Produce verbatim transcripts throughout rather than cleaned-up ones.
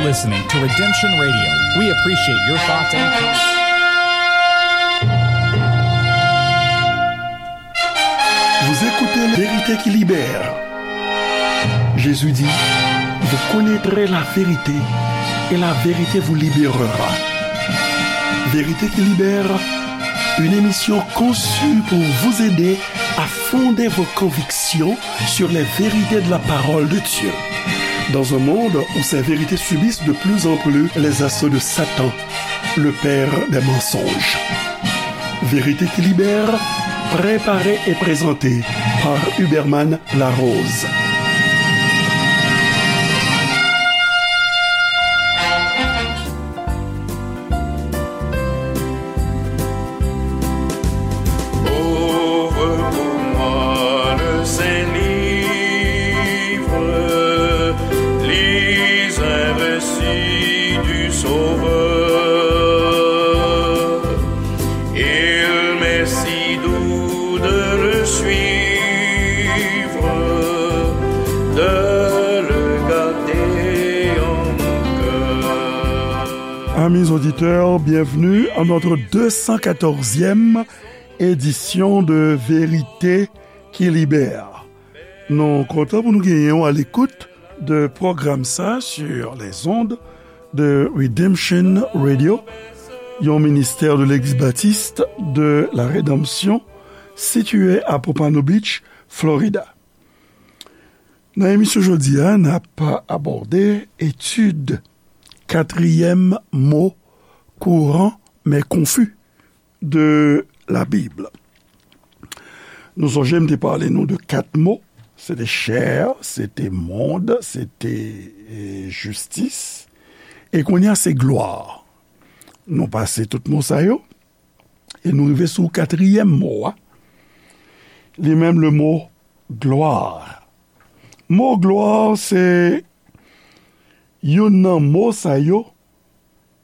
Listening to Redemption Radio. We appreciate your thoughts and comments. Vous écoutez Vérité qui libère. Jésus dit, vous connaîtrez la vérité et la vérité vous libérera. Vérité qui libère, une émission conçue pour vous aider à fonder vos convictions sur les vérités de la parole de Dieu. Dans un monde où ces vérités subissent de plus en plus les assauts de Satan, le père des mensonges. Vérité qui libère, préparée et présentée par Huberman Larose. Ouvre pour moi le Saint-Livre, lis un récit du Sauveur. Il m'est si doux de le suivre, de le garder en mon cœur. Amis auditeurs, bienvenue à notre deux cent quatorzième édition de Vérité qui Libère. Nou kontan pou nou genyen w à l'écoute de pwogram sa sur les ondes de Redemption Radio, yon ministè de Legliz Batis de la Redanmsyon sitiye à Pompano Beach, Florida. Nan emisyon jodi a, n ap abòde etid katriyèm mo kouran men konfi de la Bib. Nou sonje m te pale nou de kat mo, se te chè, se te mond, se te, e, jistis, e kounye a se glwa. Nou pase tout mo sa yo, e nou rive sou katriyèm mo a, li menm le mo glwa. Mo glwa se youn nan mo sa yo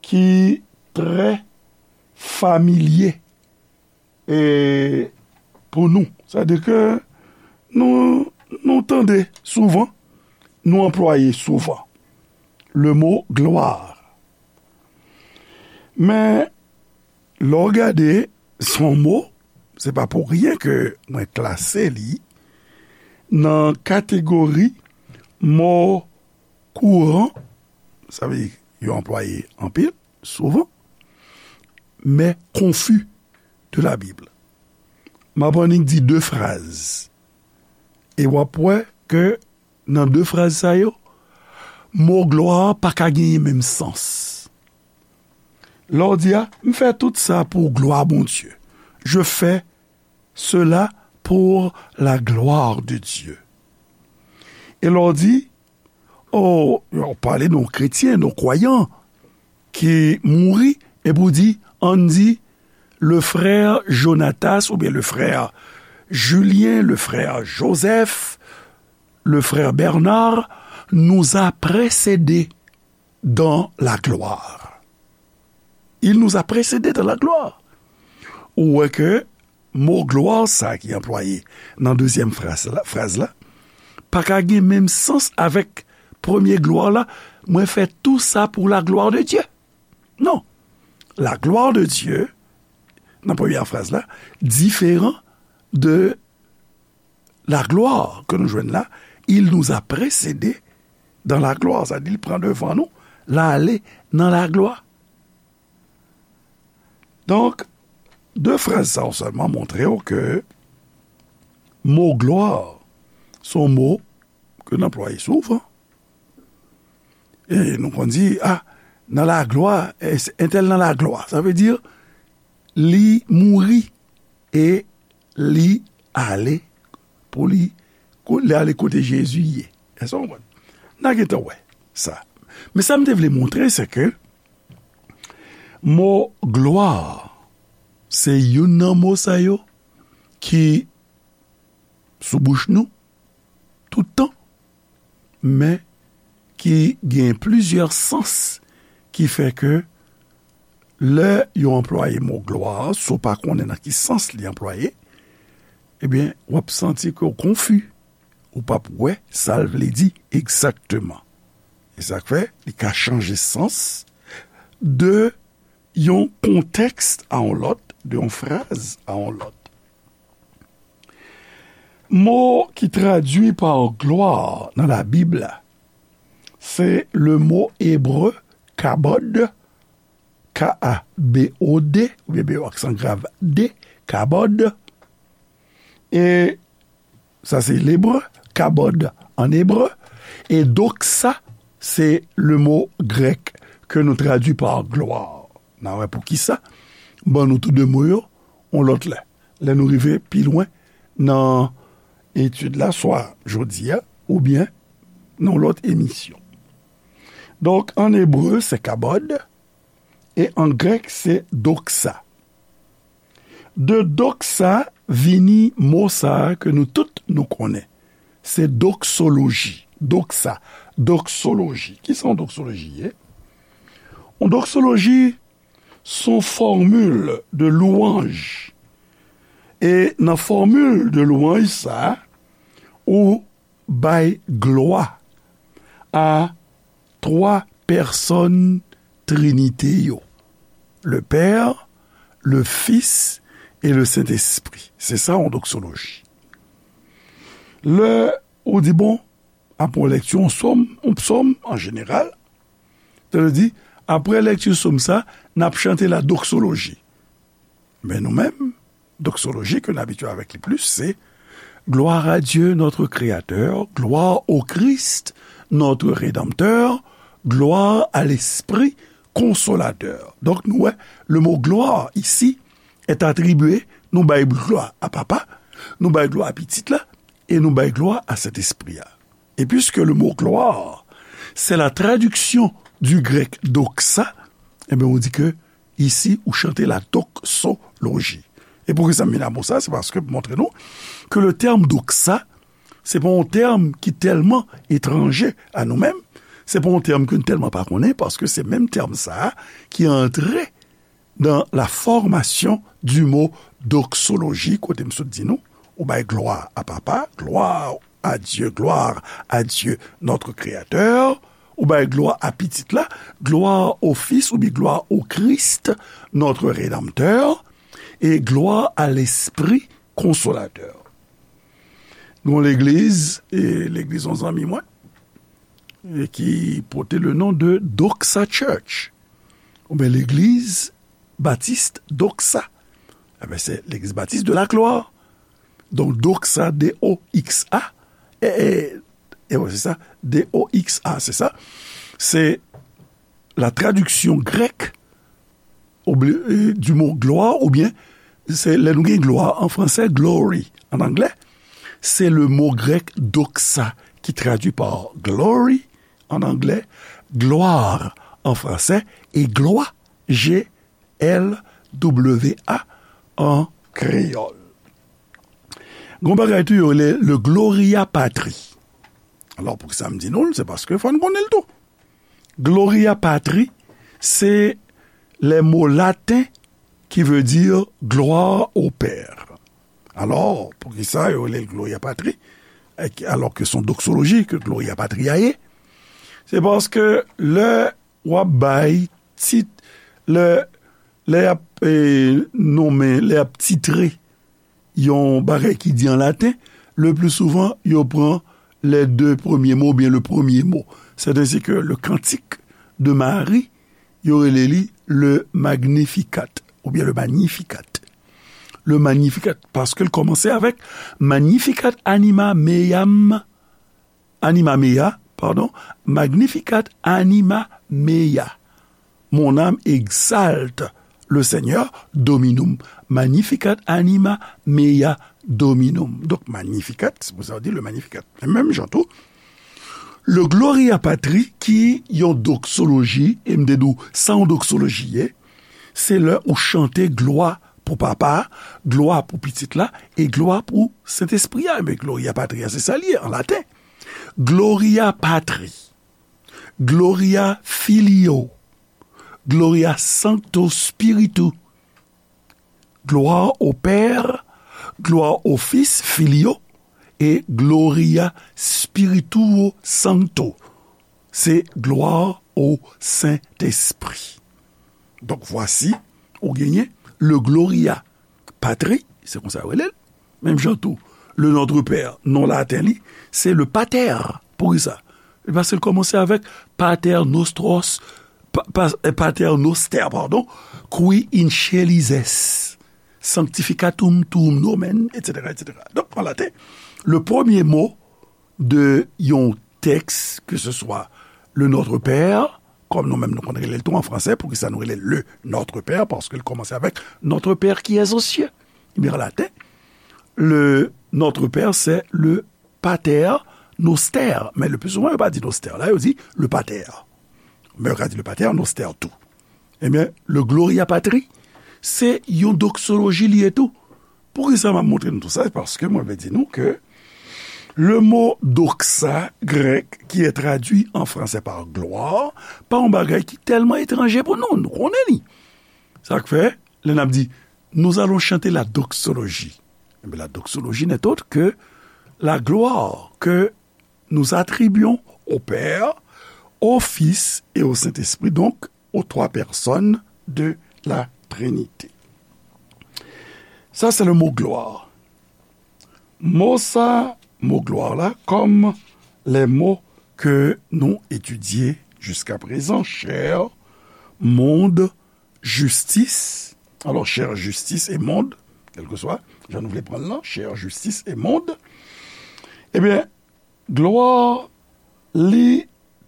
ki trè familye, e, pou nou. Sa di ke nou, nou tande souvan, nou anplwaye souvan le mo glwa. Men, lè w gade, se yon mo, se pa pou ryen ke mwen klase li nan kategori mo kouran, sa vle di yo anplwaye anpil, souvan, men konfi de la Bib. M ap annik di de fraz. E w ap wè ke nan de fraz sa yo, mo glwa pa ka genyen menm sans. Lè w di a, m fè tout sa pou glwa Bondye. Je fais cela pour la gloire de Dieu. E lè w di, o, w pale de yon kretyen, de yon kwayan ki mouri, epi w di, ann di, le frère Jonatas, oubyen le frère Julien, le frère Joseph, le frère Bernard nous a précédés dans la gloire. Il nous a précédés dans la gloire. Ou wè ke mo glwa sa ki anplwaye nan dezyèm fraz la, fraz la, pa ka gen menm sans avèk premye glwa la, mwen fè tou sa pou la glwa de Dye. Non. La glwa de Dye, nan premyè fraz la, diferan de la glwa ke nou jwenn la, il nous a précédés dans la gloire, sa di l pran devan nou, l ale nan laglwa. Donk, de fraz sa yo sèlman montre w ke mo glwa se yon mo ke n anplwaye souvan. E nou konn di, a, nan laglwa, e, entèl nan laglwa. Sa vle di, li mouri e li ale pou li, ko-, li ale kote Jezi ye. Èske w konprann? N a gentan wè sa. Men sa m te vle montre, se ke mo glwa, se youn nan mo sa yo ki sou bouch nou tout tan, men ki gen plizyè sans ki fè ke lè yo anplwaye mo glwa, si w pa konnen nan ki sans li anplwaye, ebyen, w ap santi ke w konfi, ou p ap wè sa l vle di egzakteman. E sa k fè, li ka chanje sans de yon kontèks a yon lòt, de yon fraz a yon lòt. Mo ki tradui pa glwa nan Labib la, se le mo ebre kabod, K A B O D, oubyen B O aksan grav D, kabod. E sa se lebre, kabod an ebre. E doksa, se le mo grèk ke nou tradui pa glwa. N a wè poukisa. Ban nou tou de mo yo, yon lòt lè. Lè nou rive pi lwen nan etid la, swa jodi a, oubyen nan yon lòt emisyon. Donk, an ebre, se kabod, e an grèk, se doksa. De doksa vini mo sa a ke nou tout nou konnen. Se doksoloji. Doksa, doksoloji. Kisa yon doksoloji ye? Yon doksoloji, se yon fòmil de lwanj. E nan fòmil de lwanj sa, ou bay glwa a twa pèsòn Trinite yo, le Père, le Fils et le Saint-Esprit. Se sa, yon doksoloji. Lè ou di, bon, apre yon lèkti, yon sòm, yon psòm, an jeneral, sa vle di, apre lèkti sòm sa, n ap chante la doksoloji. Men nou menm, doksoloji ke n abitye avèk li plis, se Gloire à Dieu, notre Créateur, gloire au Christ, notre Rédempteur, gloire à l'Esprit Consolateur. Donk, nou wè, le mot gloire ici est attribué, nou bay glwa a Papa, nou bay glwa a Pitit la, e nou bay glwa a Sentespri a. Et puisque le mot gloire, c'est la traduction du grec doxa, ebyen, ou di ke isi, ou chante la doxologie. E poukisa m vin a mo sa? Se paske pou montre nou ke le tèm doxa, se pa yon tèm ki tèlman etranje a nou menm, se pa yon tèm ke n tèlman pa konnen, paske se menm tèm sa a ki antre dans la formation du mot doxologie, kote m sot di nou, ou bay glwa a Papa, gloire à Dieu, gloire à Dieu, notre Créateur, ou bay glwa a Pitit la, gloire au Fils, oubyen gloire au Christ, notre Rédempteur, et gloire à l'Esprit Consolateur. Nou legliz, e legliz yon zanmi mwen, e ki pote le non de Doxa Church, oubyen legliz batis Doxa. Ebyen, se legliz batis de la glwa. Donk, Doxa, D O X A, e, e, e wè, se sa, D O X A, se sa. Se la traduction grecque oubli- e, du mot gloire, oubyen, se lè nou gen glwa an fransè, glory an anglè, se le mo grèk doxa ki tradui pa glory an anglè, gloire an fransè, e glwa, G L W A an kreyòl. Gon bagay tou yo rele le Gloria Patri. Alò, poukisa m di nou l? Se paske fò n konnen l tou. Gloria Patri, se le mo laten qui veut dire gloire au Père. Alò, poukisa yo rele l Gloria Patri, e ki- alò ke se yon doksoloji ke Gloria Patri a ye? Se paske lè w ap bay tit, lè, lè y ap, e, nonmen, lè y ap titre yon bagay ki di an laten, le pli souvan, yo pran les deux premiers mots oubyen le premye mo. C'est ainsi que le cantique de Marie, yo rele li le Magnificat, oubyen le Magnificat. Le Magnificat, paske l kòmanse avèk Magnificat anima meam, anima mea, pardon, Magnificat anima mea. Mon âme exalte le Seigneur, Dominum. Magnificat anima mea Dominum. Donk, Magnificat, se pou sa yo di le Magnificat. Men menm jan tou, le Gloria Patri, ki yon doksoloji, e m te di w sa yon doksoloji ye, se lè ou chante glwa pou Papa a, glwa pou Pitit la, e glwa pou Sentespri a. Men Gloria Patri a, se sa l ye an laten. Gloria Patri, Gloria Filio, Gloria Sancto Spiritu, gloire au Père, gloire au Fils, Filio, et Gloria Spirituo Sancto. Se gloire au Saint-Esprit. Donk, vwasi, ou genyen le Gloria Patri, se konsa yo rele l. Menm jan tou, le Notre Père, non laten li, se le Pater. Poukisa? E paske l kòmanse avèk Pater Nostros, pa, pa, eh, Pater Noster, padon, qui in caelis es, sanctificatum tuum nomen, etsetera, etsetera. Donk, an laten, le premye mo de yon tèks, ke se swa le Notre Père, kòm nou menm nou konn rele l tou an fransè, poukisa nou rele l le Notre Père? Paske l kòmanse avèk Notre Père qui es aux cieux. Ebyen, an laten, le Notre Père, se le Pater Noster. Men le pli souvan, yo pa di Noster la, yo di le Pater. Men yo ka di le Pater Noster tou. Ebyen, le Gloria Patri, se yon doksoloji li ye tou. Poukisa m ap montre nou tou sa? Paske mwen vle di nou ke le mo doxa grèk qui est traduit en français par gloire, pa yon bagay ki tèlman etranje pou nou, nou konnen li. Sa k fè, lè n ap di, nous allons chanter la doxologie. Ebyen, la doxologie n'est autre que la gloire que nous attribuons au Père, au Fils et au Saint-Esprit, donc aux trois personnes de la Trinité. Sa, se le mo glwa. Mo sa, mo glwa la, kòm lè mo ke nou etidye jiska prezan, chè, mond, jistis. Alò, chè, jistis e mond, kèlkeswa jan nou vle pran l lan, chè, jistis e mond. Ebyen, glwa, li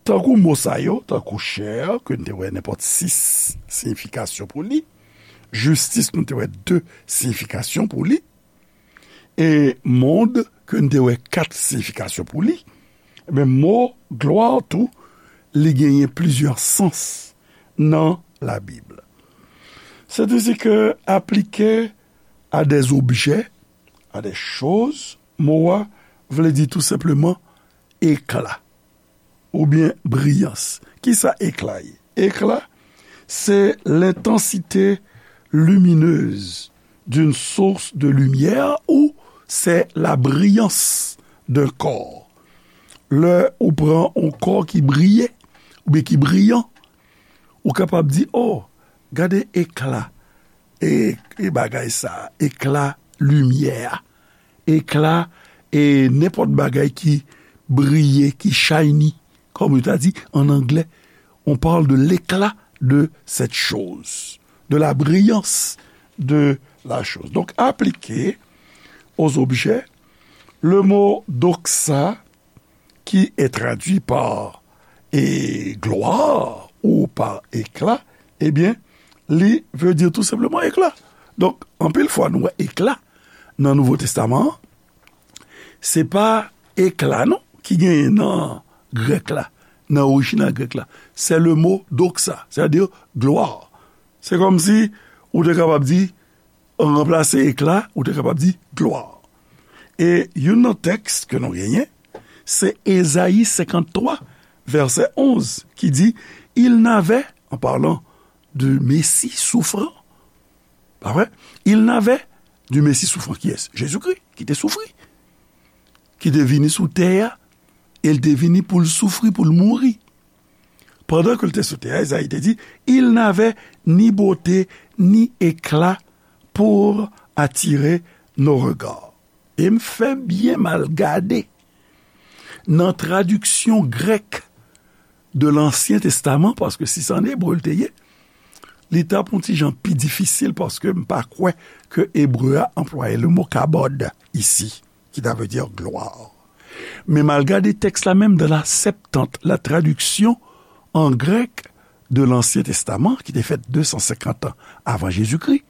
tankou mo sa yo, tankou chè, ke n te wè nenpòt sis siyifikasyon pou li, jistis, nou te wè de siyifikasyon pou li, e mond, ke n te wè kat siyifikasyon pou li, ebyen, mo glwa tou, li genyen plizyè sans nan Labib. Sètadi ke aplike à des objets, à des choses, mo a vle di tou senpleman ekla oubyen briyans. Kisa ekla ye? Ekla, c'est l'intensité lumineuse d'une source de lumière ou c'est la brillance d'un corps. Lè ou pran yon kò ki briye, oubyen ki briyan, ou kapab di, "Oh, gade ekla, e, e bagay sa, ekla limyè a, ekla, e nenpòt bagay ki briye, ki shiny," kòm yo ta di an anglè. On parle de l'éclat de cette chose, de la brillance de la chose. Donc, appliqué aux objets, le mot doxa, qui est traduit par e glwa ou pa ekla, ebyen, li vle di tou senpleman ekla. Donk, anpil fwa nou wè ekla nan Nouvo Testaman an, se pa ekla non ki genyen nan grèk la, nan orijinal grèk la. Se le mo doxa, sètadi glwa. Se kòmsi ou te kapab di, ranplase ekla, ou te kapab di glwa. E youn nan tèks ke nou genyen, se Ezayi senkanntwa, vèsè onz, ki di, Il n'avait, en parlant du Messie souffrant, pa vre? Il n'avait du Messie souffrant, kiyès? Jezikri, ki te soufri, ki te vini sou tè a, e l te vini pou l soufri, pou l mouri. Pandan ke l te sou tè a, Ezayi te di, Il n'avait ni beauté ni éclat pour attirer nos regards. E m fè byen m al gade nan tradiksyon grèk de Lansyen Testaman, paske si se an ebre l te ye, li t ap yon ti jan pi difisil, paske m pa kwè ke ebre a anplwaye le mo kabod isi, ki ta vle di glwa. Men m al gade tèks la menm dans la Septante, la traduction en grec de l'Ancien Testament, ki te fèt de san senkant an avan Jezikri,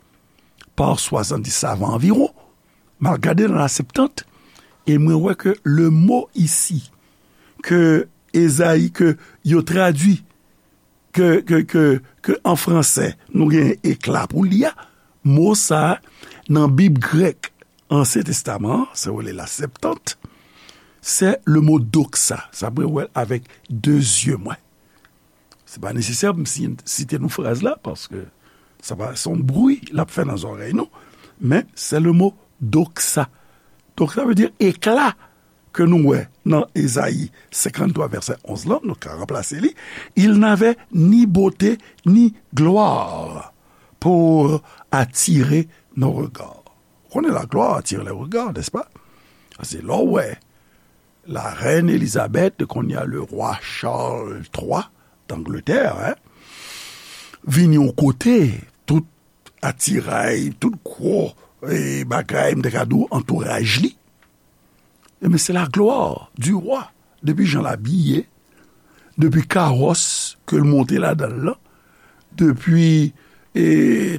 pa swasanndiz savan anviwon. M al gade nan la Septante, e mwen wè ke le mo isi, ke Ezayi, ke yo tradui, ke, ke, ke, ke an fransè, nou gen ekla pou li a, mo sa a, nan Bib grèk Ansyen Testaman an, se rele la Septante, se le mo doxa. Sa mwen wè l avèk de zye mwen. Se pa nesesè pou m si-, site nou fraz la, paske sa pa, se yon bri l ap fè nan zòrèy nou, men se le mo doxa. Doxa vle di ekla. ke nou wè nan Ezayi senkanntwa vèsè onz lan, nou ka ranplase li, il n'avait ni beauté ni gloire pour attirer nos regards. Ou konnen la gloire attire les regards, n'est-ce pas? Se lè w wè la reine Elizabeth, kounye a le roi Charles twa d'Angleterre, hein, vini yon kote, tout atiray, tout gwo, e, bagay, m te ka di w, antouraj li. Ebyen, se la gloire du roi. Depi jan l abiye, depi kawòs ke l monte ladan l lan, depi, e,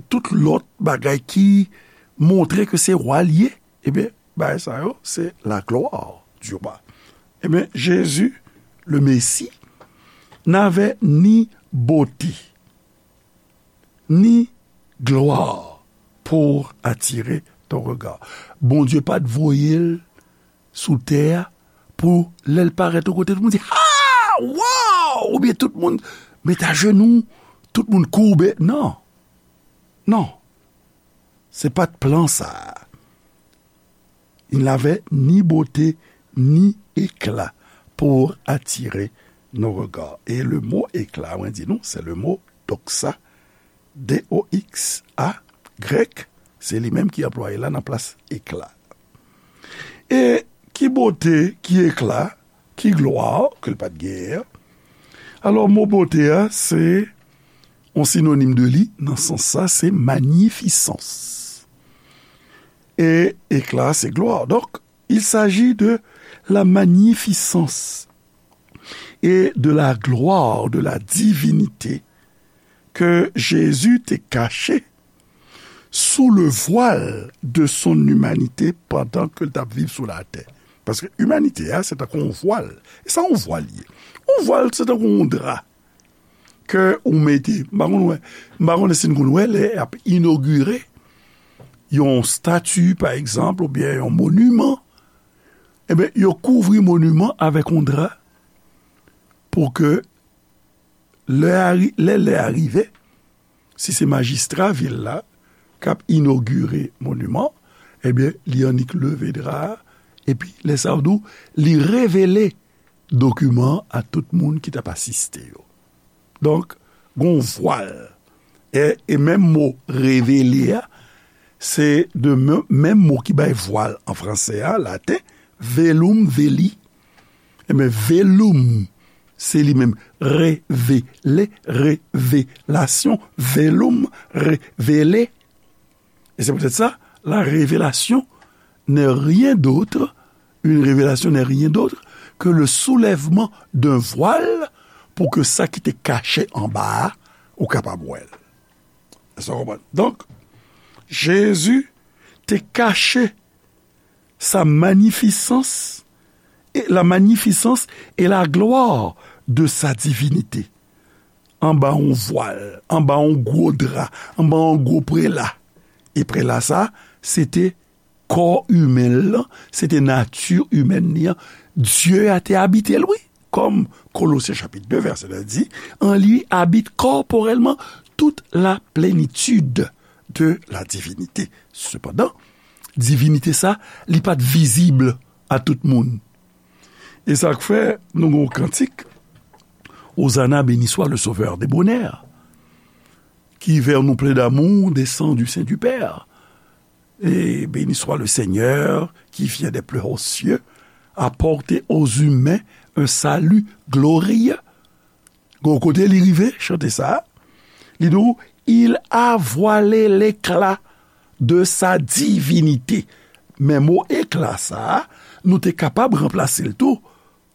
tout lòt bagay ki montre ke se wa l ye, ebyen, bagay sa yo, se la gloire du roi. Ebyen, Jésus, le Messie, n'avait ni beauté, ni gloire pour attirer ton regard. Bondye pa t voye l sou tè a pou lè l parèt yon kote, tout moun di, "Ah! Wow!" Oubyen tout moun met ajenou, tout moun koube. Non. Non. Se pa t plan sa a. Il n'avait ni beauté ni éclat pour attirer nos regards. E le mo éclat, mwen di nou, se le mo doxa, D O X A, grèk, se li menm ki anplwaye la nan plas éclat. E ki bote, ki ekla, ki glwa ke l pa t genyen an? Alò, mo bote a, se yon sinonim de li, nan sans sa, se manifisans. E ekla, se glwa. Donk, il s'agit de la magnificence et de la gloire de la divinité que Jésus te caché sous le voile de son humanité pandan ke l t ap viv sou latè. Paske imanite a, se tankou yon vwal. E sa yon vwal ye? Yon vwal, se tankou yon dra ke ou mete. M pa konn wè, m pa konnen si n konn wè lè y ap inogire yon stati, pa egzanp, oubyen yon moniman. Ebyen, yo kouvri moniman avèk yon dra pou ke lè a ri-, lè, lè a rive, si se majistra vil la k ap inogire moniman, ebyen, li annik leve dra a, epi lè sa yo di w, li revele dokiman an a tout moun ki t ap asiste yo. Donk, gon vwal. E, e menm mo revele a, se de men-, menm mo ki bay vwal an franse a, laten, velum veli. Ebyen, velum, se li menm, revele, revelasyon, velum, revele. Et c'est peut-être ça, la révélation n'est rien d'autre, une révélation n'est rien d'autre que le soulèvement d'un voile pou ke sa ki te kache anba a, ou kapab wè l. Èske w konprann? Donk, Jezi te kache sa manifisans, e la manifisans e la glwa de sa divinite. Anba yon vwal, anba yon gwo dra, anba yon gwo prela. E prela sa, se te kò imen l lan, se te nati imèn li an. Dye a te abite l, wi. Kòm Kolosyen chapit de vèsè de di, en lui habite corporellement toute la plénitude de la divinité. Sepandan, divinite sa, li pa t vizib a tout moun. E sa k fè nou gen yon kantik, Hosanna, béni soit le Sauveur des bonheurs, qui vers nous plein d'amour descend du sein du Père. Et béni soit le Seigneur qui vient des plus hauts cieux apporter aux humains un salut glorieux. Gon kote li rive, chante sa, li di w, il a voilé l'éclat de sa divinité. Men mo ekla sa, nou te kapab ranplase l tou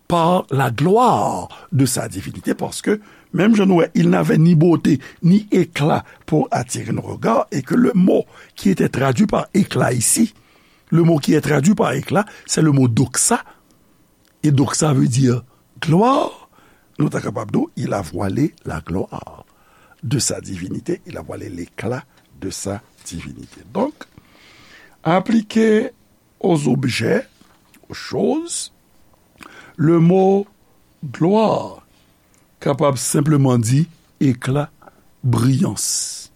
par la gloire de sa divinité, paske, menm jan nou wè, il n'avait ni beauté, ni éclat pour attirer nos regards, et que le mot qui était traduit par éclat ici, le mot qui est traduit par éclat, c'est le mot doxa. Et doxa veut dire gloire. Nou ta kapab di, il a voilé la gloire de sa divinité, il a voilé l'éclat de sa divinité. Donc, appliqué aux objets, aux choses, le mot gloire kapab senpleman di éclat, briyans.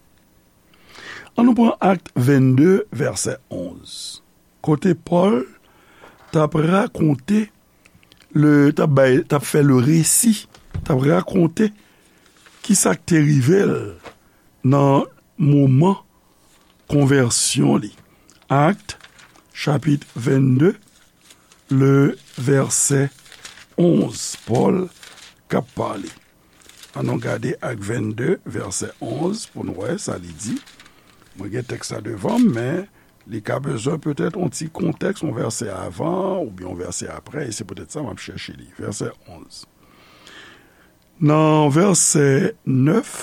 An nou pran Akt vennde, vèsè onz, kote Pòl t ap rakonte, le, t ap bay, t ap fè le resi, t ap rakonte ki sa k te rive l nan moman konvèsyon li. Akt, chapit vennde, le vèsè onz, Pòl k ap pale. Ann nou gade Akt vennde, vèsè onz, pou n wè sa li di. Mwen gen tèks la devan m, men li ka bezwen petèt yon ti kontèks, yon vèsè avan oubyen yon vèsè apre, e se petèt sa m ap chèche li. Vèsè onz. Nan vèsè nèf,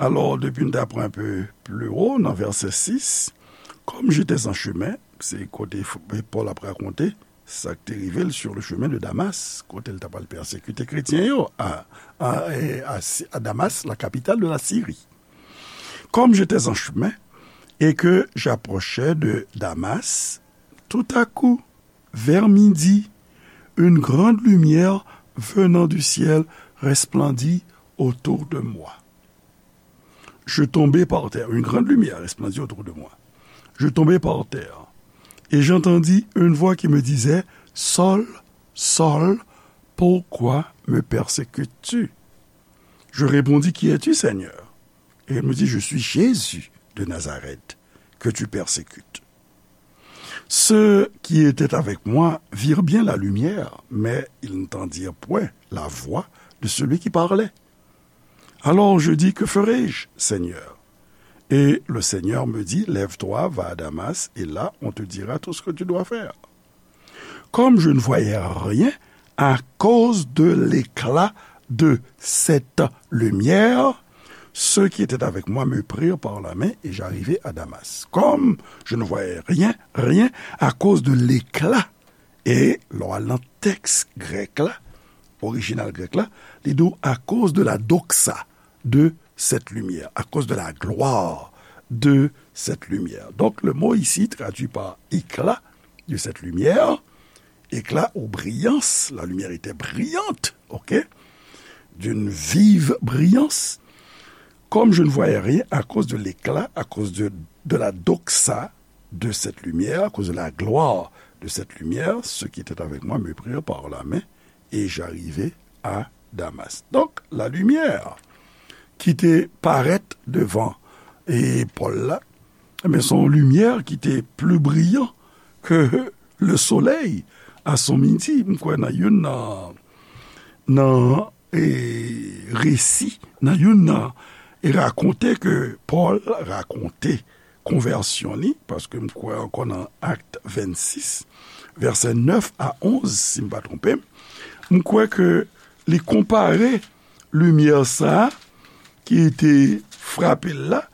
alò, depi n ta pran un peu plus haut, nan vèsè sis, comme j'étais en chemin, se kote Pòl ap rakonte sa k te rive l sur le chemin de Damas, kote l t ap al pèsekite kretyen yo a, a, a, a Damas, la capitale de la Syrie. Comme j'étais en chemin et que j'approchais de Damas, tout à coup, vers midi, une grande lumière venant du ciel resplendit autour de moi. Je tombai par terre. Une grande lumière resplendit autour de moi. Je tombai par terre et j'entendis une voix qui me disait, Saul, Saul, pourquoi me persécutes-tu? Je répondis, Qui es-tu, Seigneur? Et il me dit, Je suis Jésus de Nazareth, que tu persécutes. Ceux qui étaient avec moi virent bien la lumière, mais ils n'entendirent point la voix de celui qui parlait. Alors je dis, Que ferai-je, Seigneur? Et le Seigneur me dit, Lève-toi, va à Damas, et là on te dira tout ce que tu dois faire. Comme je ne voyais rien à cause de l'éclat de cette lumière, ceux qui étaient avec moi me prirent par la main et j'arrivai à Damas. Comme je ne voyais rien, rien à cause de l'éclat. E lè w al nan tèks grèk la, orijinal grèk la, li di w, à cause de la doxa de cette lumière, à cause de la gloire de cette lumière. Donc, le mot ici traduit par éclat de cette lumière, éclat ou brillance, la lumière était brillante, ok, d'une vive brillance. Comme je ne voyais rien à cause de l'éclat, à cause de, de la doxa de cette lumière, à cause de la gloire de cette lumière, ceux qui étaient avec moi me prirent par la main et j'arrivai à Damas. Donc, la lumière qui te paraît devant et Paul là, mais son lumière qui était plus brillant que le soleil à son midi. M kwè nan youn nan, nan, e, resi, nan youn nan, e rakonte ke Pòl rakonte konvèsyon li, paske m kwè ankò nan Akt vennsis, vèsè nèf a onz, si m pa twonpe m, m kwè ke li konpare limyè sa a ki te frape l la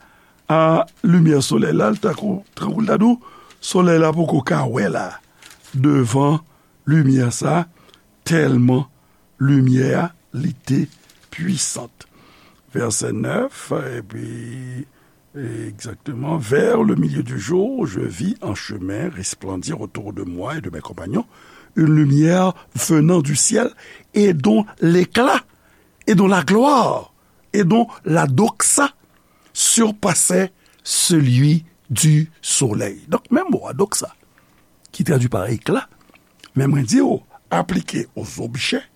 a limyè solèy la, l tankou, tankou l ta di w, solèy la poko ka wè la, devan limyè sa a, tèlman limyè a, li te pwisant. Vèsè nèf, epi, exactement, vers le milieu du jour, je vis en chemin resplendir autour de moi et de mes compagnons une lumière venant du ciel et dont l'éclat, et dont la gloire, et dont la doxa surpassait celui du soleil. Donk, menm mo a, doxa, ki tradui pa ekla, men mwen di w, aplike aux objets,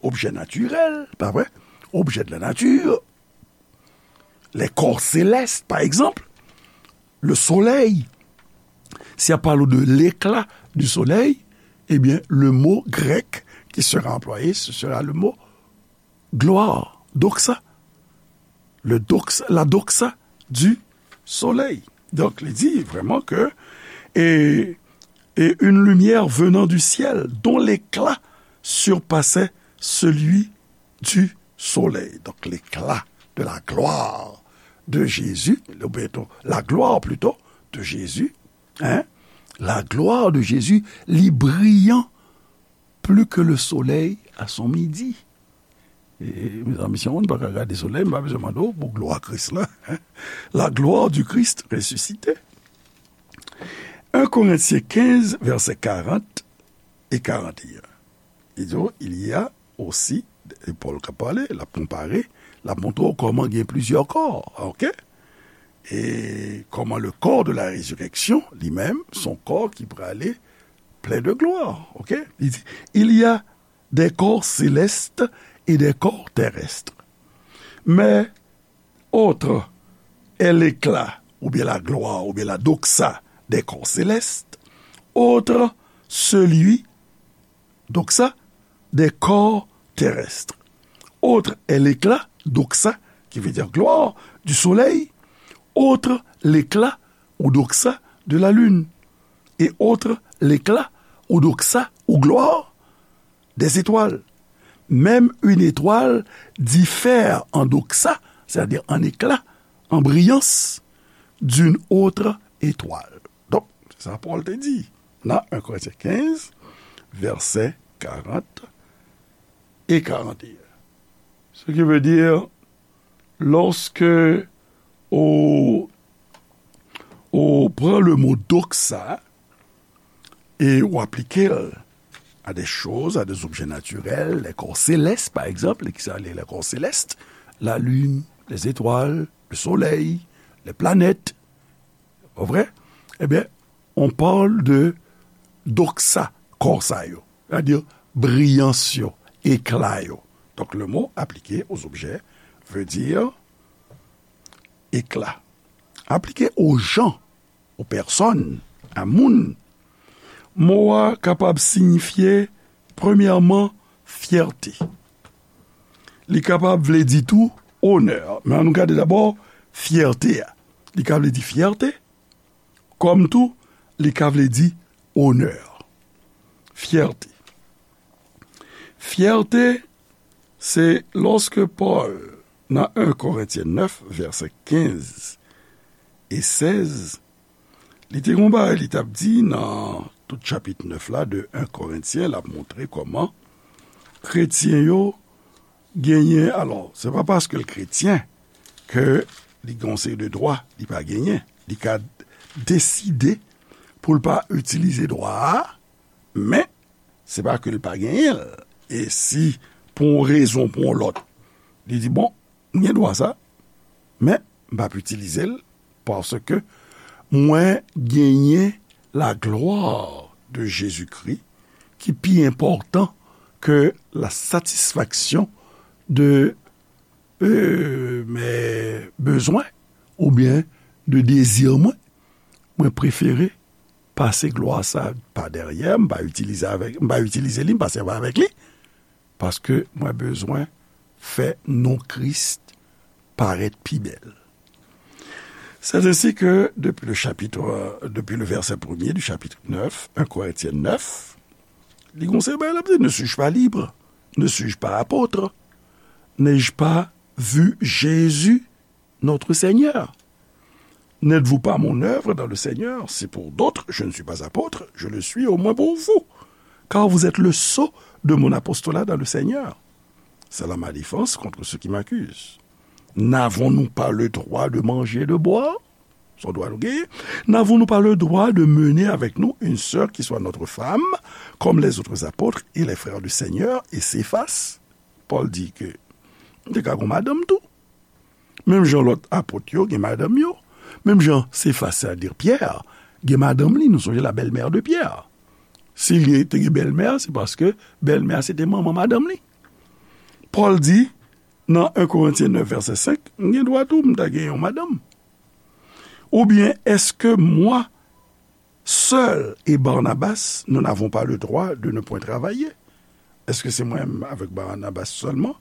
objets naturels, pa vre? Objets de la nature, les corps célestes, par exemple, le soleil. Si y a parlé de l'éclat du soleil, eh bien, le mot grec qui sera employé, ce sera le mot gloire, doxa. Le doxa, la doxa du soleil. Donk, li di vrèman ke, et, et une lumière venant du ciel, dont l'éclat surpassait celui du soleil. Donk, l'éclat de la gloire de Jésus, ou byen, la gloire plutôt de Jésus, hein, la gloire de Jésus, li briyan plus que le soleil à son midi. E, mezanmi, si yon moun pa ka gade solèy, m pa bezwen mande w pou glwa Kris la. La gloire du Christ ressuscité. Un Corinthiens quinze, versets quarante et quarante et un. Li di, il y a aussi, e Pòl k ap pale, l ap konpare, l ap montre w kòman gen plizyè kò, ok? E kòman le corps de la résurrection, li menm, se yon kò ki prale plein de gloire. Ok? Li di, il y a des corps célestes et des corps terrestres. Mais autre est l'éclat, ou bien la gloire, ou bien la doxa des corps célestes, autre celui, doxa, des corps terrestres. Autre est l'éclat, doxa, qui veut dire gloire, du soleil, autre l'éclat ou doxa de la lune, et autre l'éclat ou doxa ou gloire des étoiles. Même une étoile diffère en doxa, c'est-à-dire en éclat, en brillance, d'une autre étoile. Donk, se sa Pòl te di nan un Korentyen kenz, vèsè karant e karant e en. Ce qui veut dire, lorsque on, on prend le mot doxa et on applique à des choses, à des objets naturels, les corps célestes, par exemple, qui sont les, les corps célestes, la lune, les étoiles, le soleil, les planètes, pas vrai? Eh bien, on parle de doxa, corps sa yo, c'est-à-dire brillance yo, éclat yo. Donc, le mot appliqué aux objets veut dire éclat. Appliqué aux gens, aux personnes, à moun, mo a kapab siyifye, premyèman, fyète. Li kapab vle di tou onè. Men ann nou gade dabò fyète a. Li ka vle di fyète, kòm tou, li ka vle di onè. Fyète. Fyète, se lòske Pòl, nan un Korentyen nèf, vèsè kenz e sèz, li te gon bagay li t ap di nan tout chapit nèf la de un Korentyen, l ap montre kòman kretyen yo genyen, alò, se pa paske l kretyen ke li gen yon seri de dwa li pa genyen. Li ka deside pou l pa itilize dwa a, men se pa ke l pa genyen l. E si, pou yon rezon, pou yon lòt, li di, bon, m gen dwa sa, men m p ap itilize l, paske mwen genyen la gloire de Jésus-Christ ki pi enpòtan ke la satisfaction de, euh, mes besoins oubyen de dezi mwen. Mwen prefere pase glwa sa pa dèyè, m pa itilize avèk, m pa itilize li, m pa sèvi avèk li, paske mwen bezwen fè non Kris parèt pi bèl. C'est ainsi que, depuis le chapitre, euh, depuis le verset premier du chapitre neuf, un Corinthiens neuf, li gon seri bagay l ap di, ne suis-je pas libre? Ne suis-je pas apôtre? N'ai-je pas vu Jésus, notre Seigneur? N'êtes-vous pas mon œuvre dans le Seigneur? Si pour d'autres je ne suis pas apôtre, je le suis au moins pour vous, car vous êtes le sceau de mon apostolat dans le Seigneur. C'est là ma défense contre ceux qui m'accusent. N'avons-nous pas le droit de manger et de boire? Se yon dwa nou genyen. N'avons-nous pas le droit de mener avec nous une sœur qui soit notre femme, comme les autres apôtres et les frères du Seigneur et Céphas? Pòl di ke m te ka gon madanm tou. Menm jan lòt apot yo gen madanm yo, menm jan Sefas, sètadi Pyè, gen madanm li, nou sonje la belle-mère de Pierre. Si li te gen bèlmè, se paske bèlmè se te manman madanm li. Pòl di, nan un Korentyen nèf, vèsè senk, m gen dwa tou, m ta gen yon madanm. Oubyen, est-ce que moi seul et Barnabas, nous n'avons pas le droit de ne point travailler? Èske se mwen menm avèk Barnabas sèlman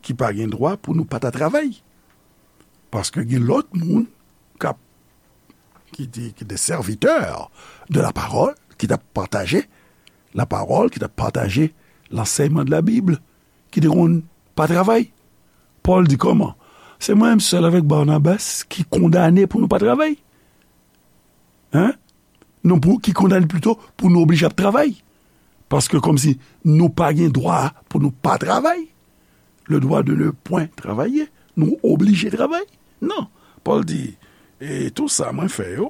ki pa gen dwa pou nou pa ta travay? Paske gen lòt moun k ap, ki te, ki te sèvitè de la parole, ki t ap pataje la parole, ki t ap pataje lansèyman de la Bible, ki te konn pa travay. Pòl di kòman? Se mwen menm sèl avèk Barnabas ki kondane pou nou pa travay. Hein? Non, pou, ki kondane plito pou nou oblije ap travay. Paske kòmsi nou pa gen dwa pou nou pa travay. Le droit de ne point travailler. Nou oblije travay. Non. Pòl di, e tou sa mwen fè yo,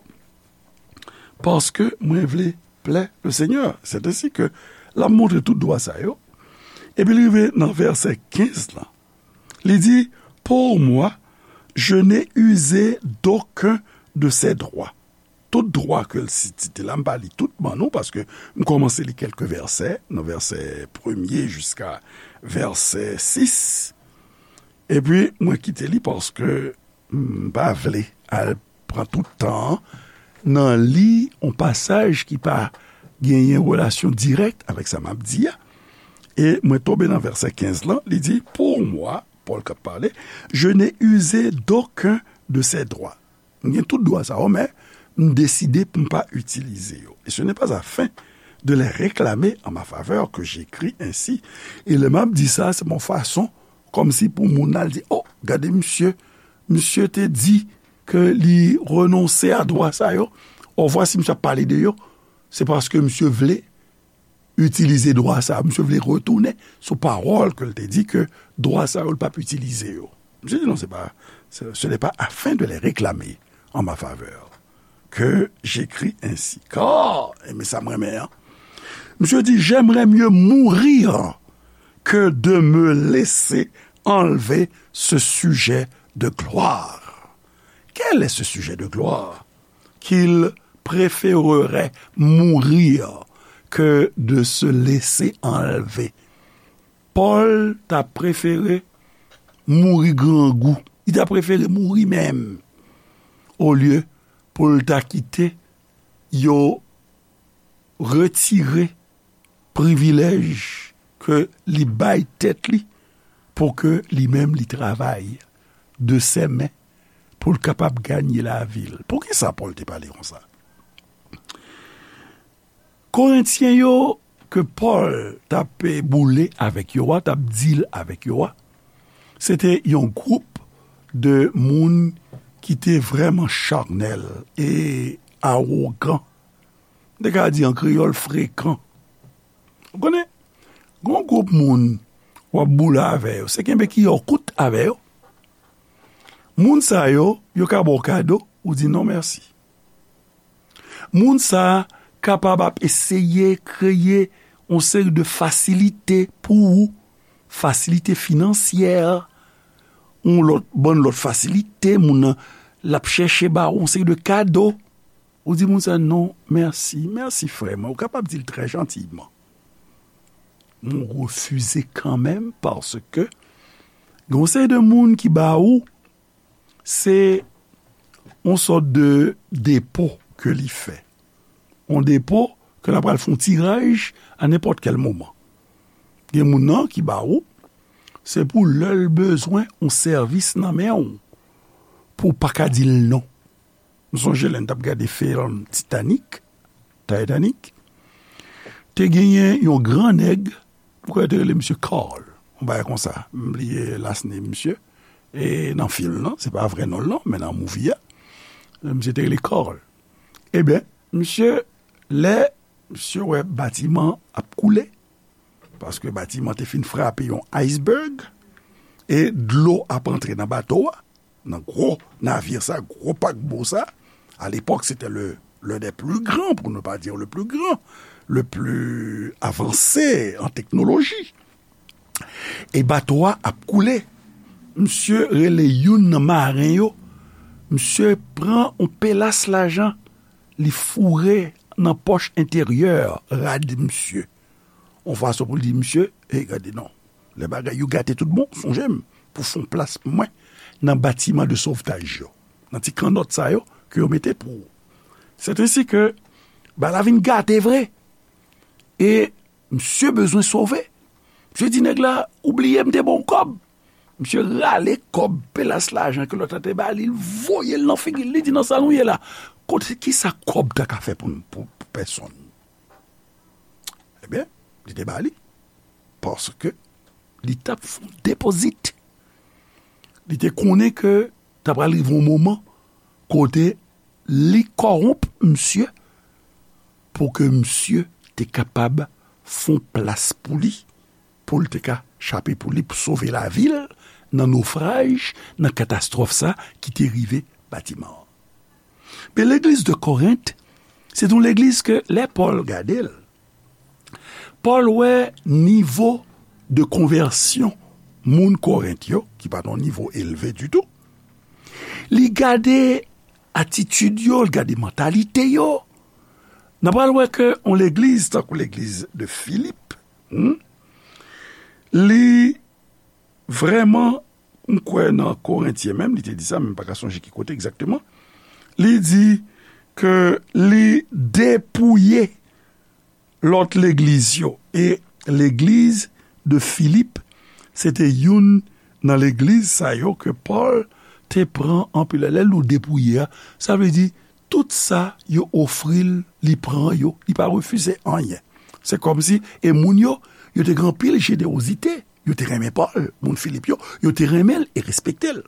paske mwen vle plè le Seigneur. C'est ainsi que l ap montre tout dwa sa yo. Epi li rive nan vèsè kenz lan. Li di, pour moi, je n'ai usé d'aucun de ces droits. tout dwa ke l site la, m pa li tout ban nou, paske m kòmanse li kèlke vèsè, nan vèsè premye jiska vèsè sis, epi mwen kite li paske m pa vle al pran tout tan an nan li yon pasaj ki pa genyen relasyon dirèk avèk sa m ap di a. E mwen tonbe nan vèsè kenz lan, li di, pour moi, Pòl k ap pale, je n'ai usé d'aucun de ces droits. M gen tout dwa sa yo, men m deside pou m pa itilize yo. Et ce n'est pas afin de les réclamer en ma faveur que j'écris ainsi. E lè m ap di sa, se yon fason kòmsi pou moun nan al di, oh, gade misye, misye te di ke li renonse a dwa sa yo. Or, vwasi misye ap pale de yo, se paske misye vle itilize dwa sa yo. Misye vle retounen sou pawòl ke l te di ke dwa sa yo, l p ap itilize yo. Misye di, non, se pa, ce, ce n'est pas afin de les réclamer en ma faveur que j'écris ainsi. Car, e men sa m renmen an, misye di, j'aimerais mieux mourir que de me laisser enlever ce sujet de gloire. Quel est ce sujet de gloire? Qu'il préférerait mourir que de se laisser enlever. Pòl ta prefere mouri grangou. Li ta prefere mouri menm, olye pou l ta kite yo retire privilèj ke li bay tèt li pou ke li menm li travay de sèmen pou l kapab ganye lavi l. Poukisa Pòl te pale konsa? Korentyen yo ke Pòl t ap boule avèk yo a, t ap deal avèk yo a, se te yon gwoup de moun ki te vrèman charnèl e awogan. M te ka di an kreyòl frekan. Ou konnen, gon gwoup moun w ap boule avè yo, se kenbe kiyè w kout avè yo. Moun sa yo, yo ka ba w kado, ou di non mèsi. Moun sa a kapab ap eseye kreye yon seri de fasilite pou ou, fasilite finansyè, yon lòt, bann lòt fasilite, moun nan, l ap chèche ba ou yon seri de kado. Ou di moun sa, non, mèsi, mèsi frè mwen. Ou kapab di l trè jantiyman. Men w refize kanmenm paske gen yon seri de moun ki ba ou, se yon sòt de depo ke li fè. Yon depo ke l ap pral fè yon tiraj a nenpòt kèl moman. Gen moun nan ki ba ou, se pou lè l bezwen yon sèvis nan men w, pou w pa ka di l non. M sonje lè n t ap gade fim Titanic, Titanic, te genyen yon gran nèg, m kwè yo te rele misye Carl, yon bagay konsa. M bliye last name misye, e nan fim nan, se pa vrè non l non, men nan movie a, misye te rele Carl. Ebyen, misye, lè misye wè batiman ap koule, paske batiman te fin frape yon iceberg, e dlo ap antre nan bato a, nan gwo navye sa, gwo pakbo sa. À l'époque, c'était le, l'un des plus grands, pour ne pas dire le plus grand, le plus avancé en technologie. E bato a ap koule. Misye rele youn nan maren yo. Misye pran yon pelas lajan, li foure nan pòch enteryè rad misye. Yon fason pou l di misye, e gade non, lè bagay yo gate tout bon, sonje m pou fè yon plas pou mwen nan batiman de sovtaj yo, nan ti kannòt sa yo ke yo mete pou ou. C'est ainsi que bagay la vin gate vre. E misye bezwen sove. Misye di nèg la, ou bliye m te ba w kòb. Misye rale kòb, pelas lajan ke lòt la te ba li, l voye l nan figi l, li di, nan sa nou ye la, kote, kisa kòb ta ka fè pou, pou, pou pèsonn? Ebyen, li te ba li, paske li t ap fè yon depozit. Li te konnen ke ta pral rive yon moman kote li kòwonp misye pou ke misye te kapab fè yon plas pou li, pou l te ka chape pou li, pou sove lavi l nan nofraj, nan katastwòf sa ki te rive batiman an. Men legliz de Korent, se yon legliz ke lè Pòl gade l, Pòl wè nivo de konvèsyon moun Korent yo, ki pa t yon nivo elve ditou. Li gade atitid yo, l gade mantalite yo. N a pral wè ke yon legliz, tankou legliz de Filip, hmm, li vrèman, m kwè nan Korentyen menm, li te di sa, men m pa ka sonje ki kote egzakteman. Li di ke li depouye lòt legliz yo. E legliz de Filip, se te youn nan legliz sa yo ke Pòl te pran anpil. Lè l di w depouye a, sa vle di tout sa yo ofri l, li pran yo, li pa refize anyen. Se kòmsi, e moun yo, yo te gen anpil jenewozite, yo te renmen Pòl, moun Filip yo, yo te renmen l e respekte l.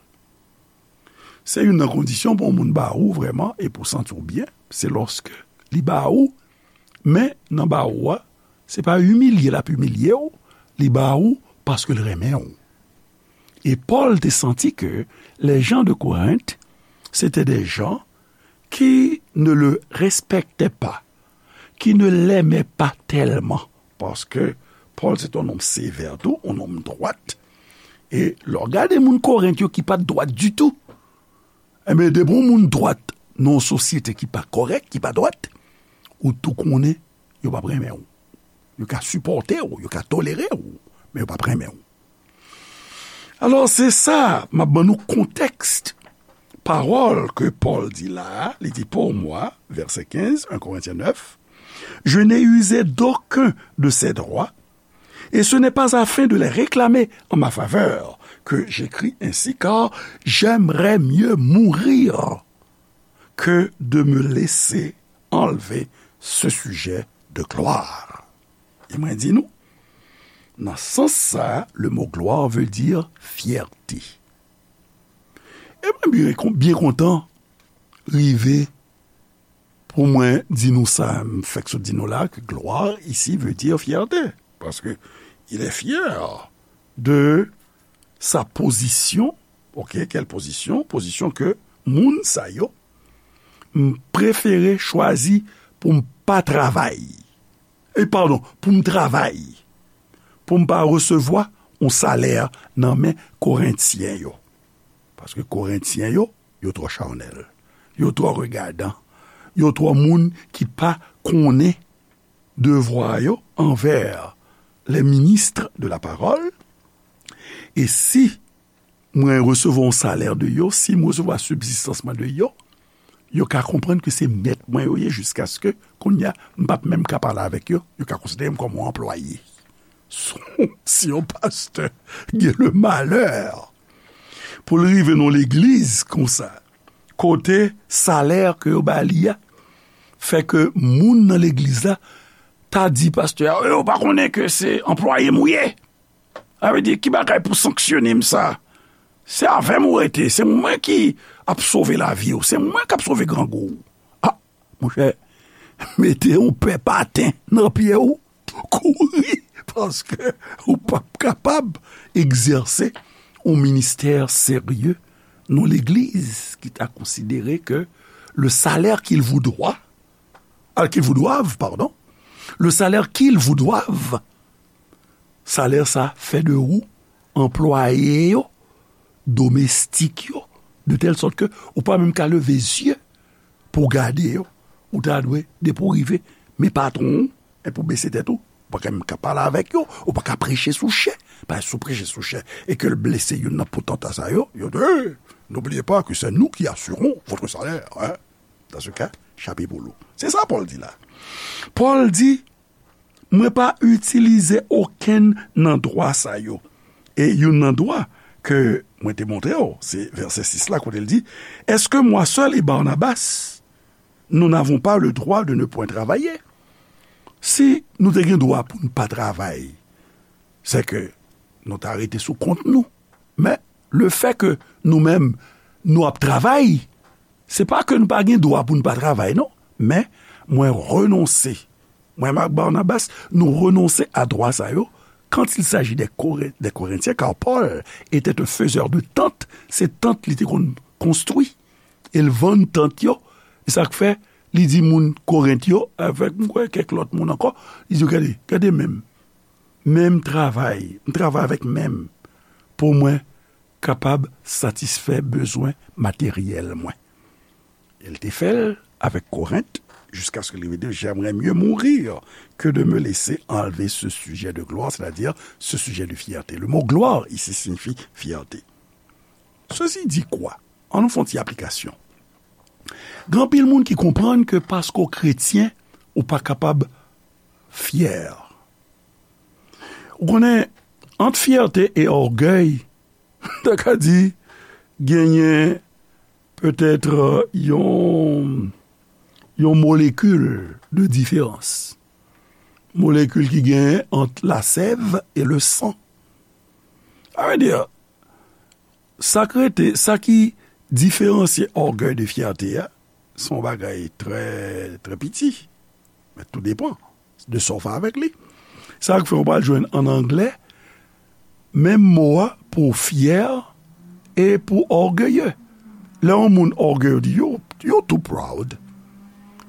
Se youn nan kondisyon pou yon moun ba ou vrèman e pou w santi w byen, se lòske li ba ou, men nan ba ou a, se pa imilye l ap imilye w, li ba ou paske l renmen w. E Pòl te santi ke les gens de Corinthe, c'était des gens qui ne le respectaient pas, qui ne l'aimaient pas tellement. Paske Pòl se te yon nonm sevè tou, yon nonm dwat. E lè w gade moun Korent yo ki pa t dwat ditou, enben, depi yon moun dwat nan yon sosyete ki pa kòrèk, ki pa dwat, ou tou konnen yo p ap renmen w. Yo ka sipòte w, yo ka tolere w, men yo p ap renmen w. Alò, se sa, m ap ban nou kontèks pawòl ke Pòl di la a. Li di, pour moi, verset quinze, un Corinthiens neuf, je n'ai usé d'aucun de ces droits, et ce n'est pas afin de les réclamer en ma faveur que j'écris ainsi, car j'aimerais mieux mourir que de me laisser enlever ce sujet de gloire. E mwen di nou, nan sans sa, le mot gloire veut dire fierté. E mwen byen, byen kontan rive pou mwen di nou sa, m fèk sot di nou la, ke gloire ici veut dire fierté. Parce que il est fier de sa position. Ok, quelle position? Position ke moun sa yo, m prefere chwazi pou m pa travay. E padon, pou m travay. Pou m pa resevwa yon salè nan men Korentyen yo. Paske Korentyen yo, yo twò chanèl. Yo twò regadan. Yo twò moun ki pa konnen devwa yo anvè les ministres de la parole. E si mwen resevwa yon salè de yo, si mwen resevwa sibzistans mwen de yo, yo ka konprann ke se mèt mwen yo ye jiskaske kounye a, m p ap menm ka pale avèk yo, yo ka konsidere m kòm yon anplwaye. Si yon pastè gen le malè pou l rive nan legliz konsa, kote salè ke yo ba li a, fè ke moun nan legliz la ta di pastè a, "Yo pa konnen ke se anplwaye m ou ye?" Sa vle di, ki bagay pou sanksyone m sa? Se avè m ou rete, se mwen ki ap sove lavi w, se mwen k ap sove grangou w. A, monchè, mete yon pè paten nan pye w, kouri, paske ou p ap kapab egzèse yon ministè serye nan legliz ki ta konsidere ke le salaire qu'il vous doit, al, qu'ils vous doivent, pardon, le salaire qu'ils vous doivent, salè sa fè de ou anplwaye yo, domestik yo, de tèl sòt ke ou pa menm ka leve zye pou w gade yo. Ou ta dwe, depi w rive, men patwon ou, epi w bese tèt ou, ou pa ka menm ka pale avèk yo, ou pa ka preche sou chè. Paske si w preche sou chè e ke l blese youn nan potanta sa yo, yo di, "Hey, n'oubliez pas que c'est nous qui assurons votre salaire, hein." Dans ce cas, chapeau pou ou. Se sa Pòl di la. Pòl di, "Mwen pa itilize okenn nan dwa sa yo." E youn nan dwa ke mwen te montre w, se vèsè sis la, kote l di, "Est-ce que moi seul et Barnabas, nous n'avons pas le droit de ne point travailler?" Si nou te gen dwa pou n pa travay, se ke nou ta rete sou kont nou. Men, lefè ke nou menm, nou ap travay, se pa ke nou pa gen dwa pou n pa travay, non. Men, mwen renonse. Mwen ak Barnabas, nou renonse a dwa sa yo, quand il s'agit des Coré-, des Corinthiens, car Paul était un faiseur de tentes, se tant li te konn konstwi, e l vann tant yo, e sa k fè, li di moun Korent yo, avèk, m kwè, kèk lòt moun ankò, li di yo, "Gade, gade men m, men m travay, m travay avèk men m, pou mwen kapab satisfè bezwen materyèl mwen." Elle te fè l avèk Korent, jusqu'à ce que li vin di, j'aimerais mieux mourir que de me laisser enlever ce sujet de gloire, c'est-à-dire ce sujet de fierté. Le mot gloire ici signifie fierté. Ceci dit quoi? Ann nou fè yon ti aplikasyon. Gen anpil moun ki konprann ke paske w kretyen, ou pa kapab fyè. Ou konnen, ant fyète e ògèy, ta ka di, genyen petèt, euh, yon, yon molekil de diferans. Molekil ki genyen ant lasèv e le san. Sa vle di, sa k rete, sa ki diferansye ògèy de fyète a, se yon bagay trè, trè piti. Men tou depann de sa w fè avèk li. Sa k fè w pral jwenn ann anglè, menm mo a pou fyè e pou ògeye. Lè yon moun ògeye, yo di, "Yo, yo too proud."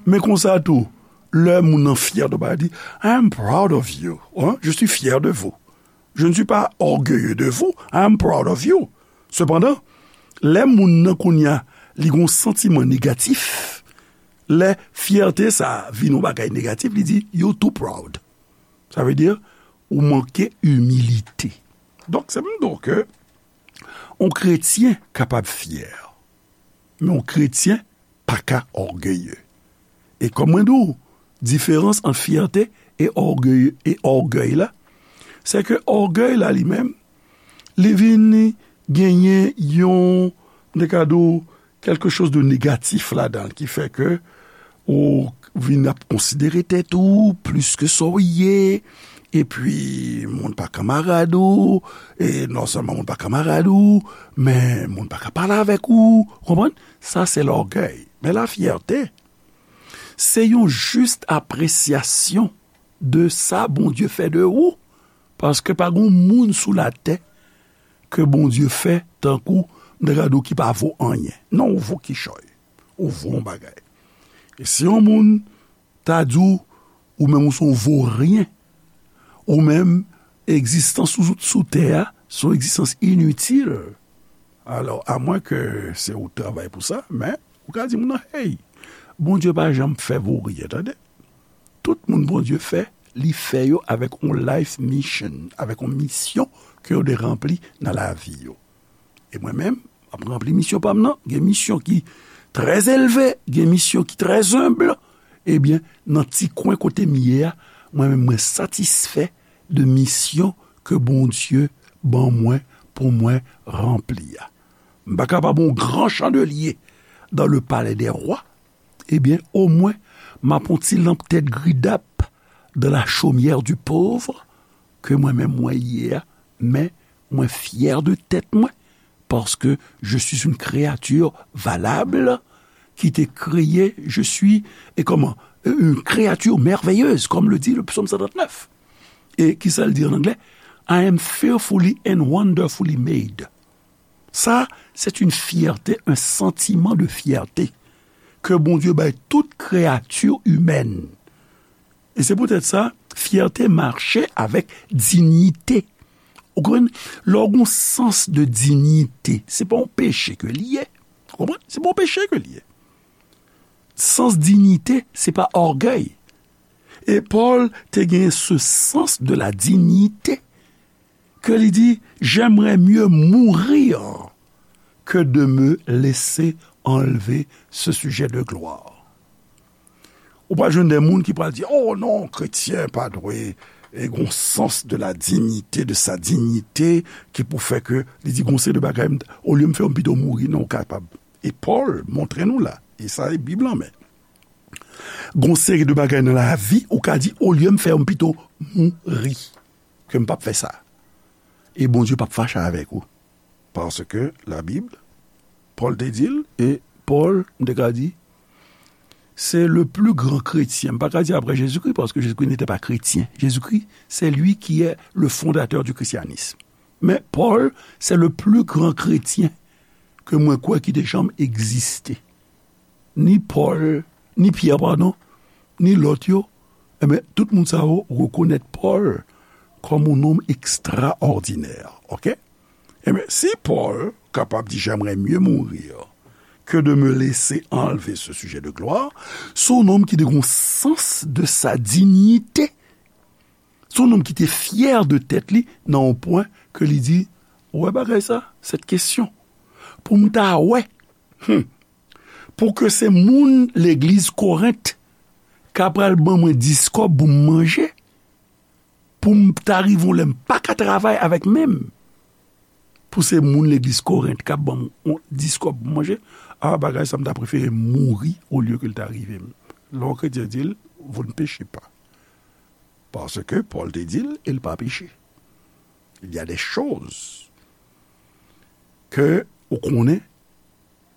Men konsa tou, lè moun nan fyè de w, li di, "I am proud of you." Hein? "Je suis fier de vous." "Je ne suis pas orgueilleux de vous. I am proud of you." Sepandan, lè moun nan kounye a, li gon santiman negatif, lè fyète sa a vin yon bagay negatif, li di, "You too proud." Sa vle di, ou manke imilite. Donk, se pou m di w ke yon kretyen kapab fyè, men yon kretyen pa ka ògeye. E kòm mwen di w, diferans ant fyète e ògèy, e ògèy la, se ke ògèy la li menm, li vin genyen yon, m te ka di w, quelque chose de négatif ladan l, ki fè ke ou vin ap konsidere tèt ou plis ke sa w ye, epi moun pa kanmarad ou, e non sèlman moun pa kanmarad ou, men moun pa ka pale avèk ou, ou konprann? Sa se lògèy. Men lafyète, se yon jis apresyasyon de sa Bondye fè de ou, paske pa gon moun sou latè ke Bondye fè tankou m ta ka di w ki pa vo anyen. Non, ou vo kichòy. Ou vo yon bagay. E si yon moun ta di w, ou menm ou se yon voryen, ou menm egzistans ou sou tè a, se yon egzistans initil. Alò, amwen ke se ou k travay pou sa, men ou ka di moun nan, hey, Bondye pa janm fè voryen, tande. Tout moun Bondye fè, li fè yo avèk yon life mission, avèk yon misyon ke yo dwe ranpli nan lavi yo. E mwen menm, m ap ranpli misyon pa m nan. Gen misyon ki trè elve, gen misyon ki trè enb. Ebyen, nan ti kwen kote m ye a, mwen menm, mwen satisfè de misyon ke Bondye ban mwen pou mwen ranpli a. M pa kapab yon gran chandelye dans le palais des rois, ebyen, omwen, m ap yon ti lanp tèt gridap dans la chaumière du pauvre, ke mwen menm mwen ye a, men mwen fyè de tèt mwen, paske je suis une créature valable, qui t'est créée, je suis, et comment, une créature merveilleuse, comme le dit le psaume cent trente-neuf. E ki sa l di an anglè? I am fearfully and wonderfully made. Sa, c'est une fierté, un sentiment de fierté ke Bondye bay tout kreyati imèn. E se poutèt sa, fyète mache avèk diyite. Ou konprann? Lè w gen yon sans de diyite, se pa yon peche ke li ye. Ou konprann? Se pa yon peche ke li ye. Sans diyite, se pa ògèy. E Pòl te gen ce sens de la dignité ke li di, j'aimerais mieux mourir que de me laisser enlever ce sujet de gloire. Ou pral jwenn de moun ki pral di, oh non, kretyen pa dwe e gon sans de la dignité, de sa dignité, ki pou fè ke li di gon seri de bagay, olye m fè yo, m pito mouri, non, ou kapab. E Pòl montre nou la, e sa e Bib lan, men gon seri de bagay nan lavi, ou ka di, olye m fè yo, m pito mouri, ke m p ap fè sa. E Bondye p ap fache avèk ou. Paske Labib, Pòl te di l, e Pòl, m te ka di, c'est le plus grand chrétien. M pa ka di après Jésus-Christ, parce que Jésus-Christ n'était pas chrétien. Jésus-Christ, c'est lui qui est le fondateur du christianisme. Men Pòl, c'est le plus grand chrétien ke mwen kwè ki te janm egziste. Ni Pòl, ni Pyè, padon, ni lòt yo, enben, tout moun sa yo rekonèt Pòl kòm yon nonm ekstraòdinè, oke? Enben, si Pòl kapab di, j'aimerais mieux mourir que de me laisser enlever ce sujet de gloire, se yon nonm ki te gen yon sans de sa dignité. Se yon nonm ki te fyè de tèt li nan yon pwen ke li di, ou wè bagay sa, cette question, pou m ta wè, hmm, pou ke se moun legliz Korent ka pral ban mwen dis kòb pou m manje, pou m ta rive yon lè m pa ka travay avèk men m, pou se moun legliz Korent k ap ban m yon dis kòb pou m manje, a, bagay sa m ta prefere mouri olye ke l ta rive m. Lè yon kretyen di l, vous ne péchez pas. Paske Pòl te di l, e l pa peche. Il y a des choses ke ou konnen,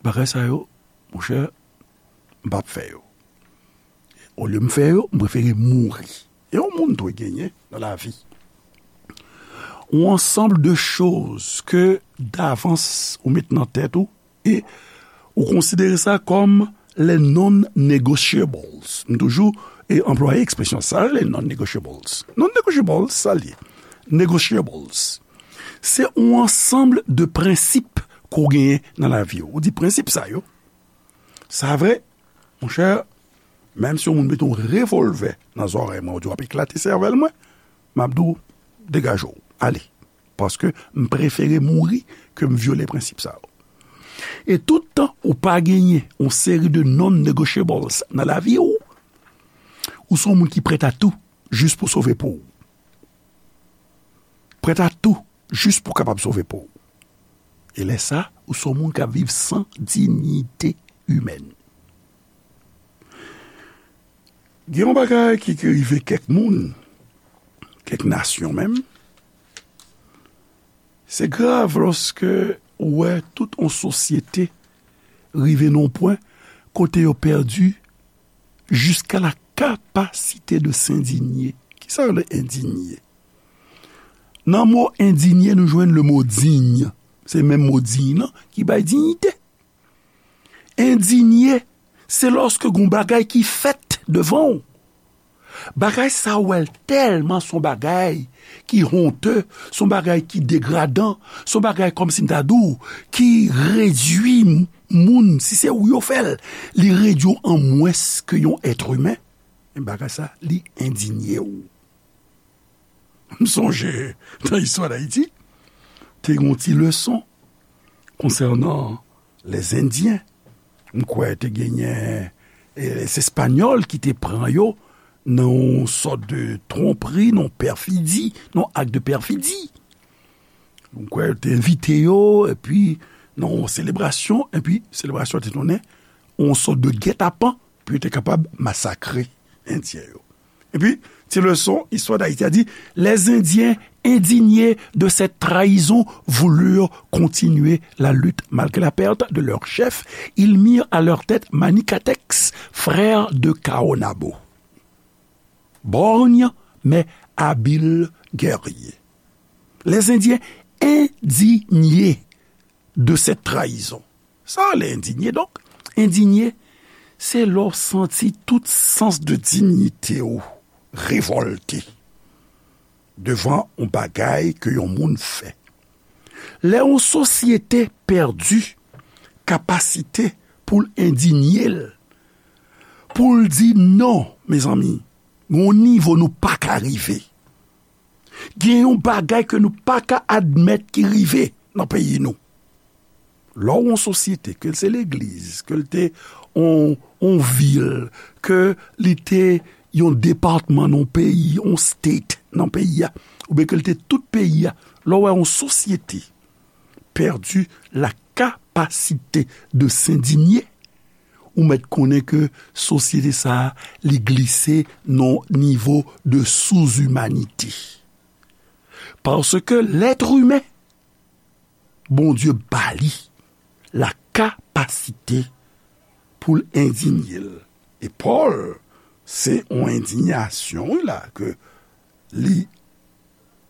bagay sa yo, monchè, m p ap fè yo. Olye m fè yo, m prefere mouri. E yon moun dwe genyen nan lavi yon ansanm de choz ke davans ou met nan tèt ou e ou konsidere sa kòm les non-negotiables. M toujou e anplwaye ekspresyon sa, les non-negotiables. Non-negotiables, sa l ye. Negotiables. Se yon ansanm de prensip ke w genyen nan lavi w. Ou di prensip sa yo, sa vre, monchè, menm si yon moun mete yon revòlvè nan zòrèy mwen, ou di w ap eklate sèvèl mwen, m ap di w, degaje w, ale. Paske m prefere mouri ke m vyole prensip sa yo. E tout tan ou pa genyen yon seri de non-negotiables nan lavi w, ou se yon moun ki prèt a tou jis pou sove po w. Prèt a tou jis pou kapab sove po w. E lè sa, ou se yon moun k ap viv san dinyite imèn. Gen yon bagay ki, ki rive kèk moun, kèk nasyon menm. Se grav lòske ou wè tout yon sosyete rive nan yon pwen kote yo pèdi jusqu'à la capacité de s'indigner. Kisa yo rele endinye? Nan mo endinye, nou jwenn le mo digne. Se menm mo digne nan ki bay dinyite. Endinye, se lòske gon bagay ki fèt devan w. Bagay sa w wè l tèlman se yon bagay ki honte, se yon bagay ki degradan, se yon bagay kòmsi m ta di w, ki redui m-, moun, si se ou yo fè l, li redui w an mwens ke yon èt imen. Men bagay sa, li endinye w. M sonje, nan istwa Dayiti, te gen yon ti leson konsènan lèzendyen. M kwè te genyen, e, se Espanyòl ki te pran yo nan yon sòt de twonpri, nan yon pèfidi, nan yon ak de pèfidi. M kwè yo te envite yo, epi nan yon selebrasyon, epi selebrasyon te tounen yon sòt de gètapan, pou yo te kapab masakre Endyen yo. Epi, ti leson, Histoire d'Haïti a dit, les Indiens indignés de cette trahison voulurent continuer la lutte malgré la perte de leur chef. Ils mirent à leur tête Manikatex, frère de Kaonabo. Borgne, mais habile guerrier. Les Indiens indignés de cette trahison. Sa rele endinye. Donk, endinye, se lè w santi tout sans de dinyite w revòlte devan yon bagay ke yon moun fè. Lè yon sosyete pèdi kapasite pou l endinye l, pou l di non, mezanmi, gen yon nivo nou pa ka rive. Gen yon bagay ke nou pa ka admèt ki rive nan peyi nou. Lè w yon sosyete, ke l se legliz, ke l te yon, yon vil, ke li te yon depatman nan yon peyi, yon state nan peyi a, oubyen ke l te tout peyi a, lè w wè yon sosyete pèdi la kapasite de s'indigner, ou mèt konnen ke sosyete sa a, li glise nan yon nivo de sous-humanité. Paske lèt imen, Bondye ba li la kapasite pou l endinye l. E Pòl, se yon endinyasyon, wi, la, ke li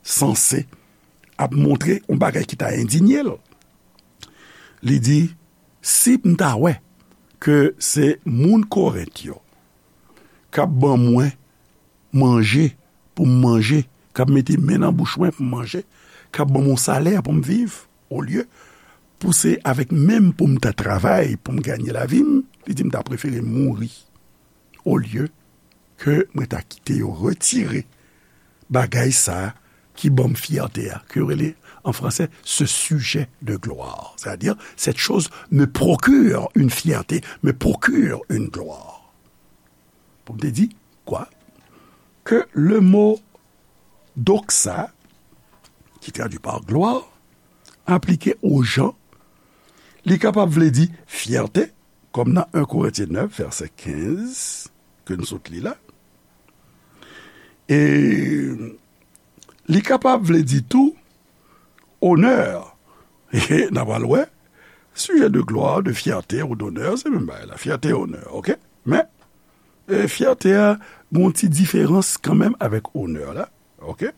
sanse ap montre yon bagay ki ta endinye l. Li di, si m ta wè ke se moun Korent yo k ap ban mwen manje pou m manje, k ap mete men nan bouch mwen pou m manje, k ap ban m yon salè pou m viv, olye pou se avèk men m pou m ta travay, pou m ganye lavi m, li di m ta prefere mouri olye ke mwen ta kite yo retire bagay sa a ki ban m fyète a, ke yo rele an fransè ce sujet de gloire. C'est-à-dire, cette chose me procure une fierté, me procure une gloire. Pou m te di, kwa? Ke le mo doxa, ki tradui pa glwa, aplike o jan, li kapab vle di fyète, kòm nan en Korentyen nèf, vèsè kenz, ke n sot li la. E li kapab vle di tou onè. E n a pral wè, sujet de gloire, de fierté ou d'honneur, se menm bagay la, fyète, onè, oke? Men, e, fyète a, gen yon ti diferans kanmenm avèk onè la, oke?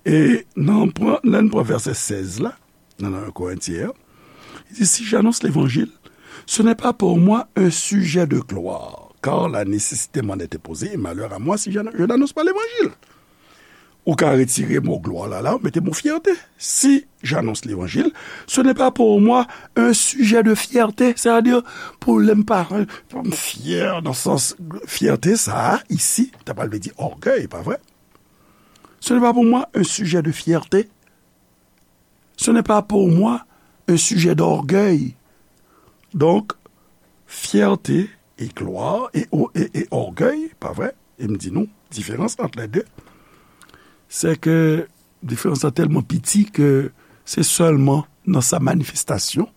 E nan, pran, lè n pran vèsè sèz la, nan, nan Korentyen an, li di, si j'annonce l'évangile, ce n'est pas pour moi un sujet de gloire, car la nécessité m'en est imposée, et malheur à moi si je n-, je n'annonce pas l'évangile. Ou ka retire mo glwa la, la, ou mete mo fyète. Si j'annonce l'évangile, ce n'est pas pour moi un sujet de fierté, c'est-à-dire, pou lè m pa, pou m fyè, nan sans fyète sa a, isi, ta pral vle di ògèy, pa vre? Ce n'est pas pour moi un sujet de fierté. Ce n'est pas pour moi un sujet d'orgueil. Donk, fyète e glwa e, e, e ògèy, pa vre? E m di nou, diferans ant lè de, se ke diferans lan tèlman piti ke se sèlman nan sa manifestasyon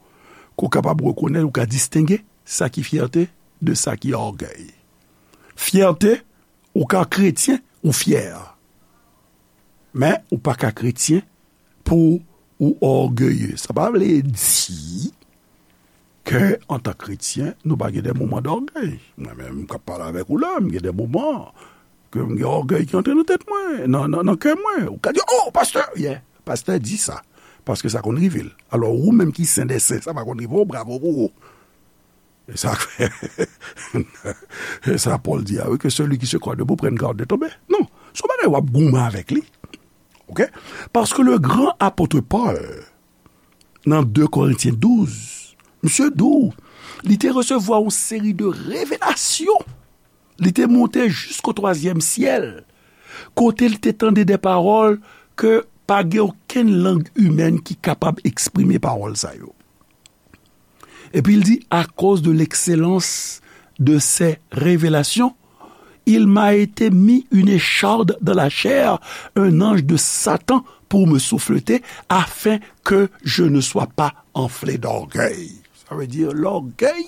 ke w kapab rekonèt, ou ka distenge sa ki fyète de sa ki ògèy. Fyète, ou ka kretyen, ou fyè. Men, ou pa ka kretyen pou ou ògeye. Sa pa vle di ke, antan kretyen, nou pa gen de moman dògèy. Mwen menm, m k ap pale avèk ou la, m gen de moman ke m gen ògèy ki antre nan tèt mwen, nan, nan, nan kè mwen. Ou ka di, "Oh, pastè, yeah, pastè di sa." Paske sa konn rive l. Alò, ou menm ki sen dè sen, sa pa konn rive w, bravo pou ou. E sa k fè, e sa Pòl di a, wi, que celui qui se croit debout prenne garde de tomber. Non, se yon bagay w ap goumen avèk li. Oke? Paske le gran apot Pòl, nan de Korentyen douz, misye di w, li te resevwa yon seri de revelasyon. Li te monte jisko twazyèm syèl, kote li te tande de pawòl ke pa gen okenn lang imèn ki kapab eksprime pawòl sa yo. Epi l di, à cause de l'excellence de ces révélations, il m'a été mis une écharde dans la chair, un ange de Satan pour me souffleter, afin que je ne sois pas enflé d'orgueil. Sa vle di, lògèy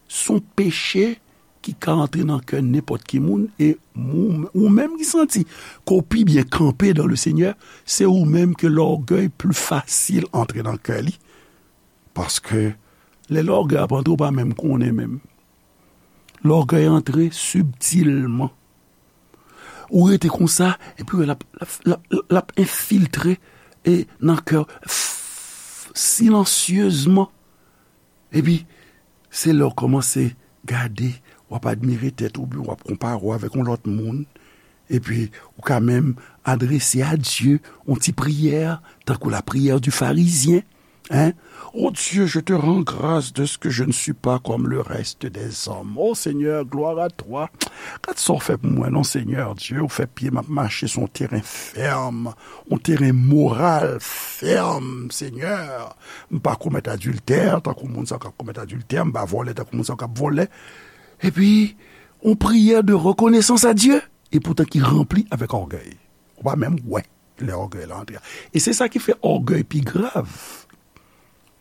se yon peche ki ka antre nan kè nenpòt ki moun, e ou, ou menm ki santi ke w pi byen kanpe dans le Seigneur, se ou menm ke lògèy pli fasil antre nan kè li. Paske lè lògèy ap antre, ou pa menm konnen menm. Lògèy antre sibtilman. Ou rete konsa, epi w wè l ap, l ap, l ap, l ap enfiltre e nan kè w, f-, silansyezman. Epi, se lè w kòmanse gade, w ap admire tèt ou, oubyen w ap konpare w avèk yon lòt moun. Epi, ou ka menm adrese a Dye yon ti priyè, tankou la prière du pharisien. Hein? Oh Dieu, je te rends grâce de ce que je ne suis pas comme le reste des hommes. Oh Seigneur, gloire à toi. Gad sa w fè pou mwen, non, Seigneur Dieu, ou fè pye m ap mache sou yon teren fèm, yon teren moral fèm, Seigneur. M pa komèt adiltè, tankou moun sa k ap komèt adiltè, m pa vòlè, tankou moun sa k ap vòlè. Epi, yon priyè de reconnaissance à Dieu, epoutan ki ranpli avèk ògèy. Ou pa menm wè lè ògèy la antre a. E se sa ki fè ògèy pi grav.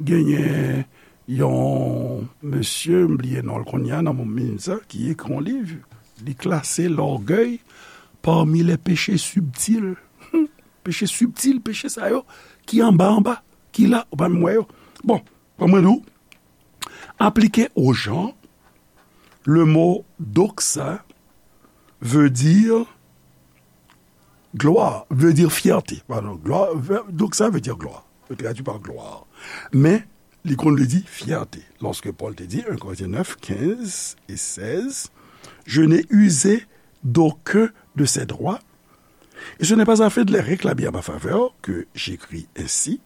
Genyen yon mesye, m bliye non l kounye a, nan moun sa, ki ekri yon liv, li klase lògèy pami les péchés subtils. Hmm, peche sibtil, peche sa yo, ki anba, anba, ki la, ou pa menm wè yo. Bon, ban mwen di w, aplike o jan, le mo doxa veut dire gloire, veut dire fierté. Pardon, gloire, veut, doxa veut dire gloire. Veut traduit par gloire. Men, li konn vle di fyète. Lorsque Paul te dit, un Corinthiens neuf, quinze et seize, je n'ai usé d'aucun de ces droits, et ce n'est pas afin de les réclamer à ma faveur que j'écris ainsi,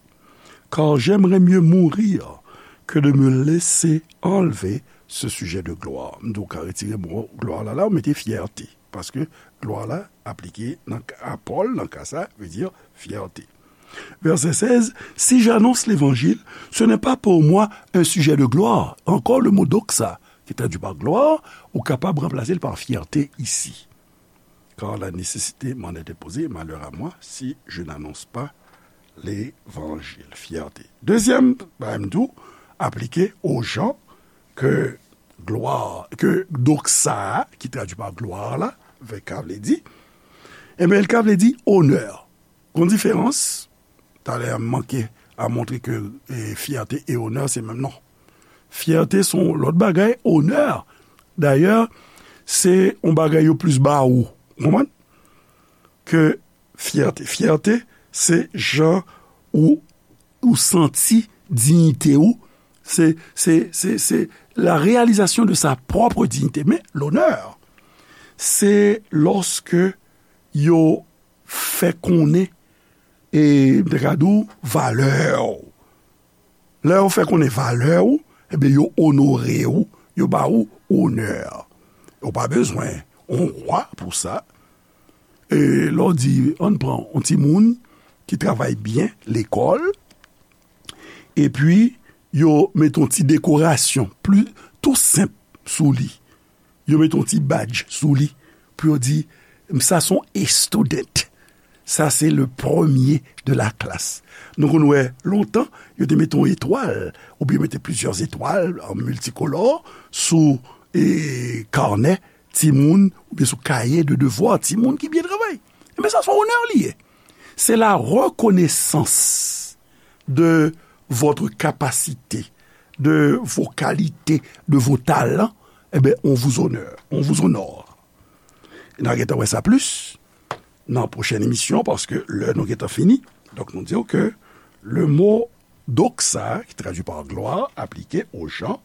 Car j'aimerais mieux mourir que de me laisser enlever ce sujet de gloire. M di w ka retire mo gloire la, la, ou mete fierté. Paske gloire la aplike nan ka, a Pòl, nan ka sa, vle di fierté. Verset seize, si j'annonce l'évangile, ce n'est pas pour moi un sujet de gloire. Encore le mot doxa, qui est traduit par gloire, ou kapab ranplase l pa fierté isi. Car la nécessité m'en est imposée, malheur à moi si je n'annonce pas l'évangile. Fierté. Dezyèm, bagay m tou, aplike aux gens que gloire, que doxa, ki tradui pa glwa la, vè ka vle di, ebyen, l ka vle di onè. Gon diferans, talè a m manke a montre ke, e, fierté e onè se menm non. Fierté se yon lòt bagay, onè, dayè, se yon bagay yo plis ba ou. Ou konprann? Ke fierté. Fierté, se jan ou, ou santi diyite ou. Se, se, se, se la réalisation de sa propre dignité. Men, l'honneur, se lòske yo fè konnen, e, m te ka di w, valè w. Lè yo fè konnen valè w, ebyen, yo onore w, yo ba ou onè. Ou pa bezwen yon wa pou sa. E lè w di, ann pran yon timoun ki travay byen lekòl, epi yo mete yon ti dekorasyon pli, tou senp sou li. Yo mete yon ti badj sou li pou yo di, sa se yon A student. Sa se le premier de la classe. Nou konn wè lontan, yo te mete yon etwal, oubyen mete plizyè etwal an miltikolò sou, e, kanè timoun, oubyen sou kaye de devwa timoun ki byen travay. Ebyen, sa se yon onè li ye. C'est la reconnaissance de votre capacité, de vos qualités, de vos talents, eh bien, on vous honore, on vous honore. N a gentan wè sa plis nan pwochèn emisyon, paske lè nou gentan fini. Donk, nou di ke le mot doxa, ki tradui pa glwa, aplike aux gens,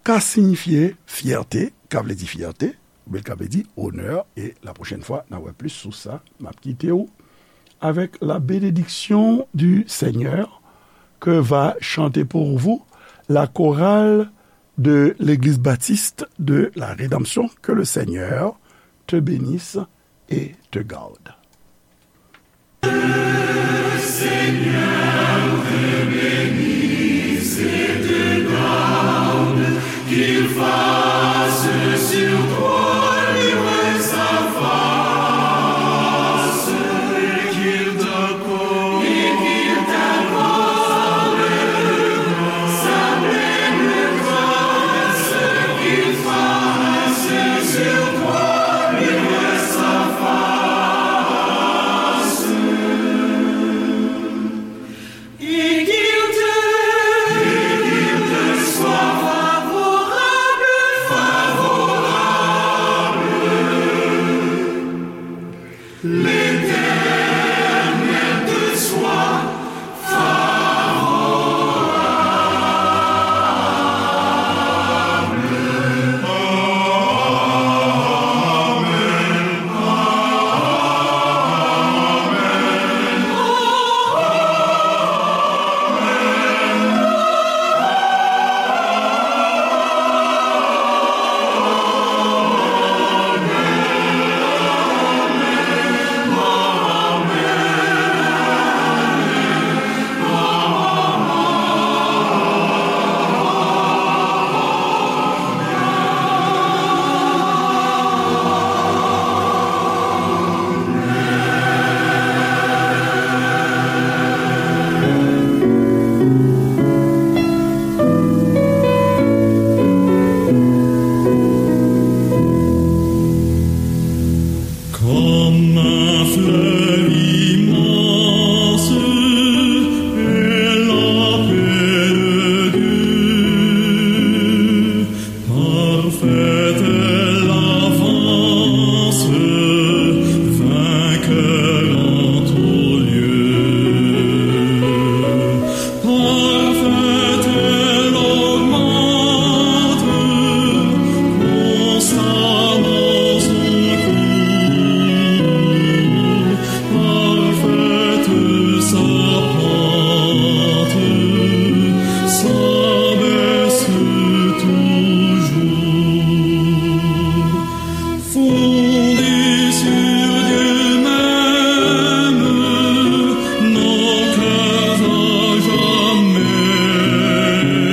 ka siyifye fyète, ka vle di fyète, oubyen ka vle di onè, e la pwochèn fwa, n a wè plis sou sa, m ap kite w avec la bénédiction du Seigneur que va chanter pour vous la chorale de l'Église baptiste de la Rédemption. Que le Seigneur te bénisse et te garde.